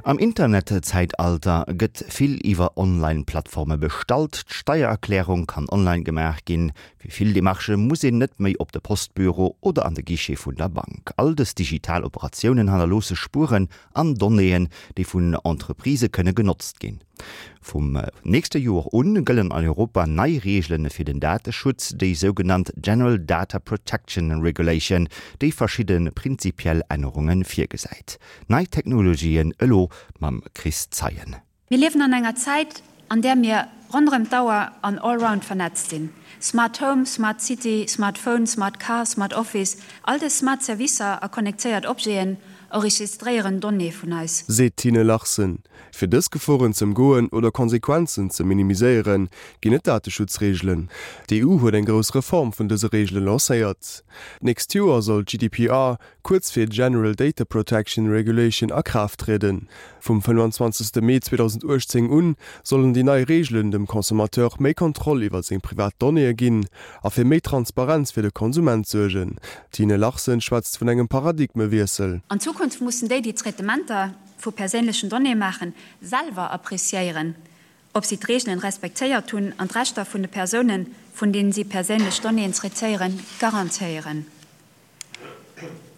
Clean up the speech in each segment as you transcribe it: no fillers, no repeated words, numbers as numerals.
Am Internetzäitalter gëtt vill iwwer Online-Plattforme bestallt. D'Steiererklärung kann online gemaach ginn. Fir vill Demarchë muss een net méi op de Postbüro oder an de Guichet vun der Bank. All dës digital Operatiounen hannerloosse Spueren an Donnéeën, déi vun Entreprisë kënne genotzt ginn. Vum nächste Joer un gëllen an Europa nei Reegele fir den Dateschutz, déi sougenannt General Data Protection Regulation, déi verschidde prinzipiell Ännerunge virgesäit. Nei Technologien elo mam Chris Zeien. Mir liewen an enger Zäit, an där mir ronderëm d'Auer an allround vernetzt sinn. Smart Home, Smart City, Smart Phone, Smart Car, Smart Office, all dës smart Servicer a connectéiert Objeten enregistréieren Donnéeë vun eis. Seet d'Tine Larsen. Fir dës Geforen z'ëmgoen oder Konsequenzen ze minimiséieren, ginn et Dateschutzreegelen. D'EU huet eng grouss Reform vun dëse Reegele lancéiert. D'nächst Joer soll d'GDPR, kuerz fir General Data Protection Regulation, a Kraaft trieden. Vum 25. Mee 2018 un sollen déi nei Reegelen dem Consommateur méi Kontroll iwwer seng privat Donnéeë ginn a fir méi Transparenz fir de Konsument suergen. D'Tine Larsen schwätzt vun engem Paradigmewiessel. An Zukunft mussen déi, déi Traitementer vu perséinlechen Donnéeë maachen, selwer appreciéieren, ob si d'Reegelen respektéiert hunn an d'Rechter vun de Persounen, vun deenen si perséinlech Donnéeën traitéieren, garantéieren.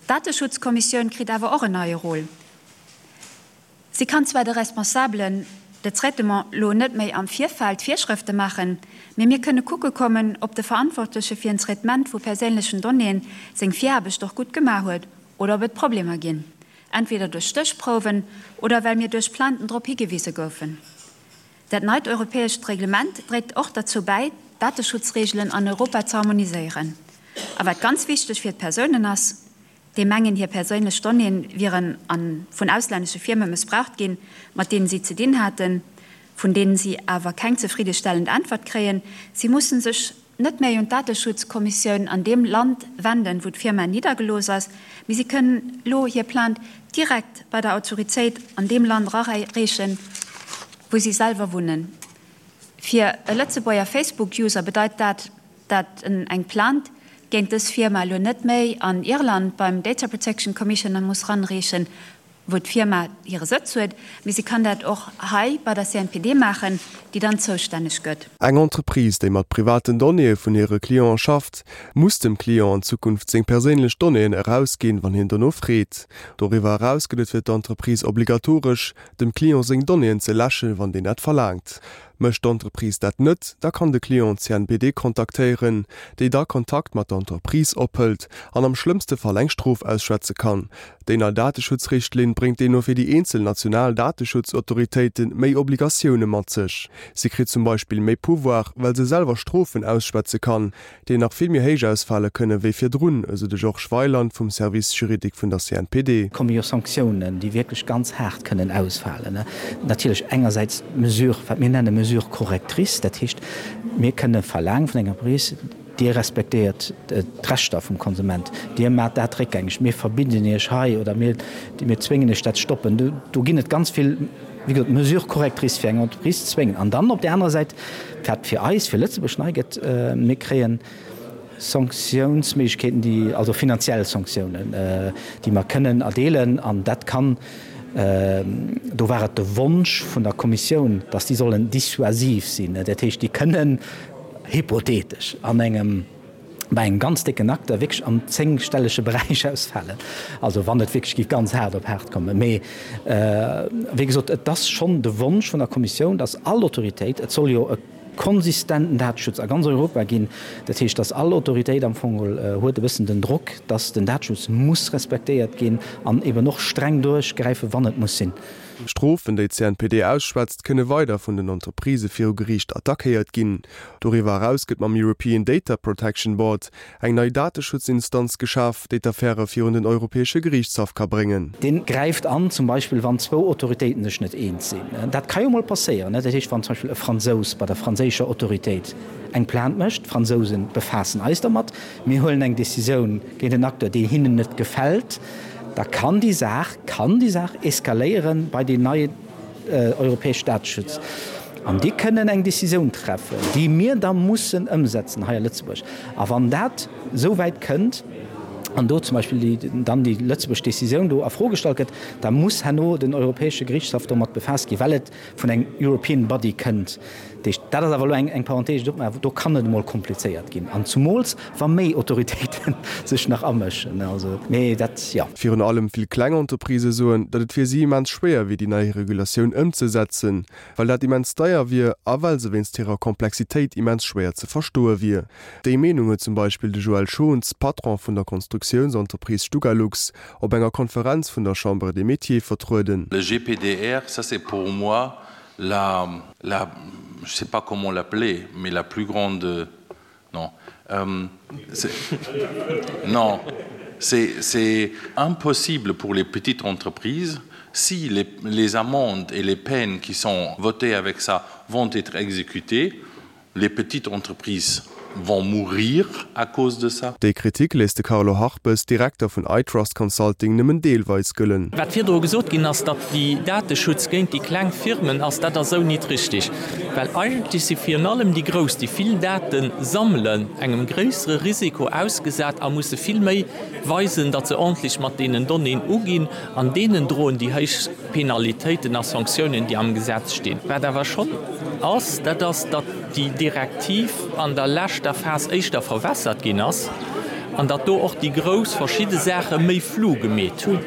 D'Dateschutzkommissioun kritt awer och en neie Rôle. Si kann zwar de Responsabelen de traitement lo net méi am Virfeld Virschrëfte maachen, mee mir kënne kucke kommen, ob de Verantwortleche fir en Traitement vu perséinlechen Donnéeën seng Viraarbecht och gutt gemaach huet oder ob et Problemer ginn, entweder duerch Stéchprouwen oder well mir duerch Plainten drop higewise goufen. Dat neit europäescht Reglement dréit och derzou bäi, d'Dateschutzreegelen an Europa ze harmoniséieren. A wat ganz wichteg fir d'Persounen ass, déi mengen, hir perséinlech Donnéeë wieren a vun auslännesche Firme mëssbraucht ginn, mat deenen si ze dinn haten, vun deenen si awer keng zefriddestellend Äntwert kréien, si mussen sech net méi un d'Dateschutzkommissioun an deem Land wenden, wou d'Firma niddergelooss ass, mee si kënnen elo hir Plainte direkt bei der Autoritéit an deem Land erareechen, wou si selwer wunnen. Fir e Lëtzebuerger Facebook-User bedeit dat, dat en eng Plainte géint dës Firma elo net méi an Irland beim Data Protection Commissioner muss ranreechen, wou d'Firma hire Sëtz huet, mee si kann dat och hei bei der CNPD maachen, déi dann zoustänneg gëtt. Eng Entreprise, déi mat privaten Donnéeë vun hire Cliente schafft, muss dem Client an Zukunft seng perséinlech Donnéeën erausginn, wann hien dono freet. Doriwwer eraus gëtt et fir d'Entreprise obligatoresch, dem Client seng Donnéeën ze läschen, wann deen dat verlaangt. Mécht d'Entreprise dat net, da kann de Client d'CNPD kontaktéieren, déi da Kontakt mat der Entreprise ophëlt an am schlëmmste Fall eng Strof ausschwätze kann. Déi nei Dateschutzrichtlinn bréngt deemno fir déi eenzel national Dateschutzautoritéite méi Obligatioune mat sech. Si kritt zum Beispill méi Pouvoir, well se selwer Strofen ausschwätze kann, déi nach vill méi héich ausfale kënne wéi virdrun, esou de Georges Weyland vum Service juridique vun der CNPD. Komme jo Sanktiounen, déi wierklech ganz haart kënnen ausfalen. Natierlech engersäits d'Mesure, wat mir nenne Mesure correctrice, dat heescht, mir kënne verlaangen vun enger Entreprise, Dir respektéiert d'Rechter vum Konsument, Dir maacht dat réckgängeg, mir verbidden Iech hei oder mir zwéngen Iech dat ze stoppen. Do ginn et ganz vill, wéi gesot, Mesures correctrices fir eng Entreprise ze zwéngen. An dann op där anerer Säit, wat fir eis, fir Lëtzebuerg nei gëtt, mir kréien Sanktiounsméiglechkeeten, déi, also finanziell Sanktiounen, déi mer kënnen erdeelen. An dat kann, do war et de Wonsch vun der Kommissioun, dass déi sollen dissuasiv sinn, dat heescht, déi kënnen, hypothetesch an engem, bei engem ganz décken Acteur wierklech am zéngstellege Beräich ausfalen, also wann et wierklech géif ganz haart op haart kommen. Mee wéi gesot, et ass schonn de Wonsch vun der Kommissioun, datt all Autoritéit, et soll jo e konsistenten Dateschutz a ganz Europa ginn, dat heescht, datt all Autoritéit am Fong geholl huet e bëssen den Drock, datt den Dateschutz muss respektéiert ginn an eben och streng duerchgräifen, wann et muss sinn. D'Strofen, déi d'CNPD ausschwätzt, kënne weider vun den Entreprisë viru Geriicht attackéiert ginn. Doriwwer eraus gëtt mam European Data Protection Board eng nei Dateschutzinstanz geschaf, déi d'Affäre virun den Europäesche Geriichtshaff ka bréngen. Dee gräift an, zum Beispill wann zwou Autoritéiten sech net eens sinn. Dat ka jo mol passéieren. Dat heescht, wann zum Beispill e Fransous bei der franséischer Autoritéit eng Plainte mécht, d'Fransousen befaassen eis dermat, mir huelen eng Décisioun géint en Acteur, déi hinnen net gefält, da kann déi Saach, kann déi Saach eskaléieren bei deen neien europäesch Dateschutz. An déi kënnen eng Décisioun treffen, déi mir da mussen ëmsetzen hei a Lëtzebuerg. A wann dat esou wäit kënnt, an do zum Beispill déi, dann déi lëtzebuerg Décisioun do a Fro gestallt gëtt, da muss herno den Europäesche Gerichtshaff domat befaasst ginn, well et vun engem European Body kënnt. Dat heescht, dat ass awer elo eng, eng Parenthèse, déi ech opmaachen, do kann et emol komplizéiert ginn, an zumools wa méi Autoritéite sech nach amëschen. Also, mee dat, jo. Virun allem vill kleng Entreprisë soen, datt et fir si immens schwéier wier, déi nei Regulatioun ëmzesetzen, well dat immens deier wier a well se wéinst hirer Komplexitéit immens schwéier ze verstoe wier. Déi Meenung huet zum Beispill de Joël Schons, Patron vun der Konstruktiounsentreprise Stugalux, op enger Konferenz vun der Chambre des Métiers vertrueden. Le GPDR, ça c'est pour moi la, la, je sais pas comment l'appeler, mais la plus grande, non, euh, non, c'est impossible pour les petites entreprises si les, les amendes et les peines qui sont votées avec ça vont être exécutées, les petites entreprises vont mourir à cause de ça. Déi Kritik léisst de Carlo Harpes, Direkter vun iTrust Consulting, nëmmen deelweis gëllen. Wat virdru gesot ginn ass, datt déi Dateschutz géint déi kleng Firmen ass, dat ass esou nit richtig, well eigentlech si virun allem déi Grouss, déi vill Date sammelen, engem gréissere Risiko ausgesat a musse vill méi weisen, datt se ordentlech mat deenen Donnéeën uginn, an deenen droen déi héich Penalitéiten a Sanktiounen, déi am Gesetz stinn. Wat awer schonn ass, dat ass, datt déi Direktiv an der leschter Phas éischter verwässert ginn ass an datt do och déi Grouss verschidde Saache méi flou gemeet hunn.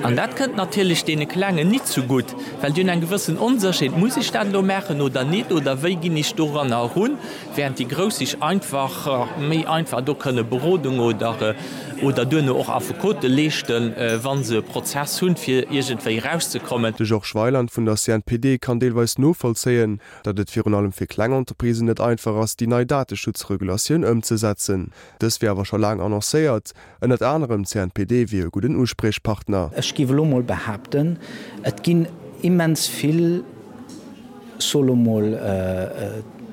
An dat kënnt natierlech deene Klengen nit zegutt, well déi hunn eng gewëssen Onsécherheet, Muss ech dat elo maachen oder nit oder wéi ginn ech doranner erun? Während déi Grouss sech einfach méi einfach do kënne Berodung oder oder duerno och Affekote leeschten, wa se e Prozess hunn, fir iergendwéi erauszekommen. De Georges Weyland vun der CNPD kann deelweis novollzéien, datt et virun allem fir kleng Entreprisen net einfach ass, déi nei Dateschutzregulatioun ëmzesetzen. Dës wier awer scho laang annoncéiert. Ënnert anerem d'CNPD wier e gudden Uspriechpartner. Ech géif elo mol behaapten, et ginn immens vill. So lo mol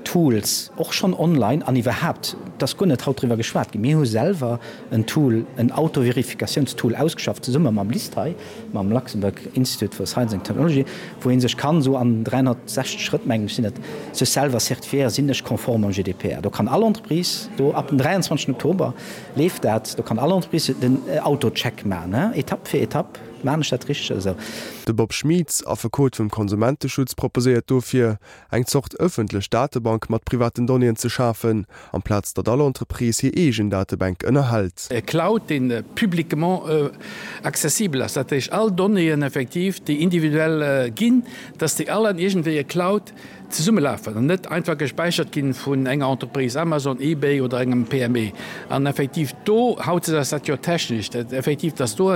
Tools, och schonn online an iwwerhaapt, et ass guer net haut driwwer geschwat ginn, mir hu selwer en Tool, en Autoverifikatiounstool ausgeschafft, zesumme mam LIST hei, mam Luxembourg Institute for Science and Technology, wou ee sech kann esou an 360 Schrëtt, mengen ech sinn et, sech selwer certifiéieren, sinn ech konform mam GDPR. Do kann all Entreprise, do ab dem 23 Oktober leeft dat, do kann all Entreprise den Autocheck maachen, Etapp fir Etapp. Maan ech dat richteg oder sou? De Bob Schmieds, Affekot vum Konsumenteschutz, proposéiert dofir, eng Zort ëffentlech Datebank mat privaten Donnéeën ze schafen, amplaz datt all Entreprise hir eegen Datebänk ënnerhält. E Cloud, dee publiquement accessibel ass, dat heescht all Donnéeën effektiv, déi individuell ginn, dass déi all an iergendwéi e Cloud zesummelafen an net einfach gespäichert ginn vun enger Entreprise, Amazon, eBay oder engem PME. An effektiv do, hautdesdaags ass dat jo technesch, dat effektiv, dass do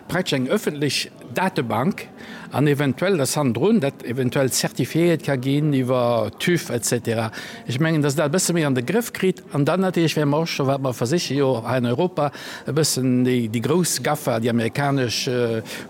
praktesch eng öffentlech Datebank an eventuell, dass hannendrun dat eventuell zertifiéiert ka ginn iwwer TÜV et cetera. Ech mengen, dass dat e bësse méi an de Grëff kritt. An dann natierlech wäre mer och scho, wat mer versiche jo hei an Europa e bëssen déi grouss GAFA, déi amerikanesch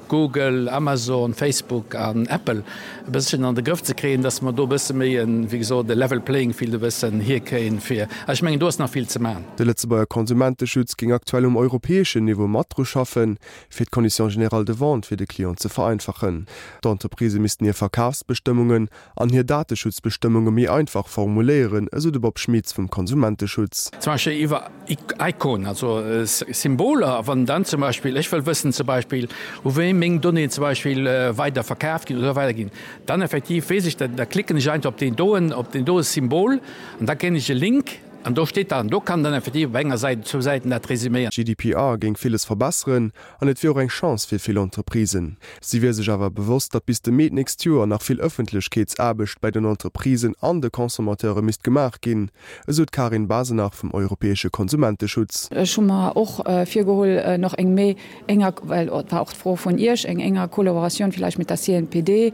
Google, Amazon, Facebook an Apple, e bësschen an de Grëff ze kréien, dass mer do e bësse méi en, wéi gesot, e level playing field e bëssen hierkréien, fir, a ech mengen, do ass nach vill ze maachen. De Lëtzebuerger Konsumenteschutz géing aktuell um europäeschen Niveau mat dru schaffen, fir d'Conditions générales de vente fir de Client ze vereinfachen. D'Entreprisë missten hir Verkafsbestëmmungen an hir Dateschutzbestëmmunge méi einfach formuléieren, esou de Bob Schmitz vum Konsumenteschutz. Zum Beispill iwwer Iconen, also Symboler, wann dann zum Beispill, ech wëll wëssen zum Beispill, u wéi meng Donnéeën zum Beispill weider verkaaft ginn oder weider ginn, dann effektiv weess ech, da klicken ech einfach op deen doen, op deen doe Symbol an da kréien ech e Link an do steet dann, do kann dann effektiv op enger Säit, zwou Säiten dat resüméieren. GDPR géing villes verbesseren an et wier och eng Chance fir vill Entreprisen. Si wier sech awer bewosst, datt bis de Mee d'nächst Joer nach vill Ëffentlechkeetsaarbecht bäi den Entreprisen an de Consommateure misst gemaach ginn, esou d'Karin Basenach vum europäesche Konsumenteschutz. Ech hu mer och virgeholl, nach eng méi enger, well et war och d'Fro vun Iech, eng enger Kollaboratioun villäicht mit der CNPD,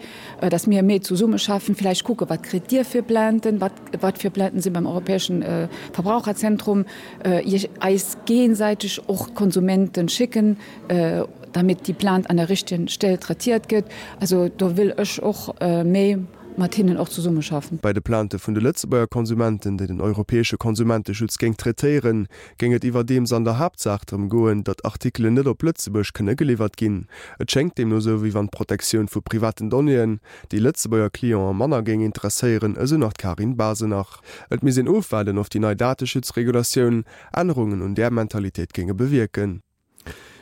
dass mir méi zesummeschaffen, villäicht kucken, wat kritt Dir fir Plainten, wat, wat fir Plainten si beim Europäeschen Verbraucherzentrum, Iech eis géigesäiteg och d'Konsumenten schécken, damit déi Plainte an der richtigen Stell traitiert gëtt. Also do wëll ech och méi mat hinnen och zesummeschaffen. Bei de Plainte vun de Lëtzebuerger Konsumenten, déi den europäesche Konsumenteschutz géing traitéieren, géing et iwwerdeems an der Haaptsaach drëm goen, datt Artikelen net op Lëtzebuerg kënne geliwwert ginn. Et schéngt deemno esou, wéi wann d'Protektioun vu privaten Donnéeën déi Lëtzebuerger Clientë manner géing interesséieren, esou nach d'Karin Basenach. Et misst een ofwaarden, of déi nei Dateschutzregulatioun Ännerungen un där Mentalitéit géinge bewierken.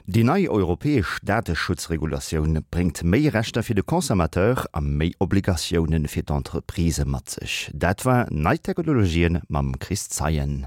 Déi nei europäesch Dateschutzregulatioun bréngt méi Rechter fir de Consommateur a méi Obligatioune fir d'Entreprisë mat sech. Dat war Nei Technologien mam Chris Zeien.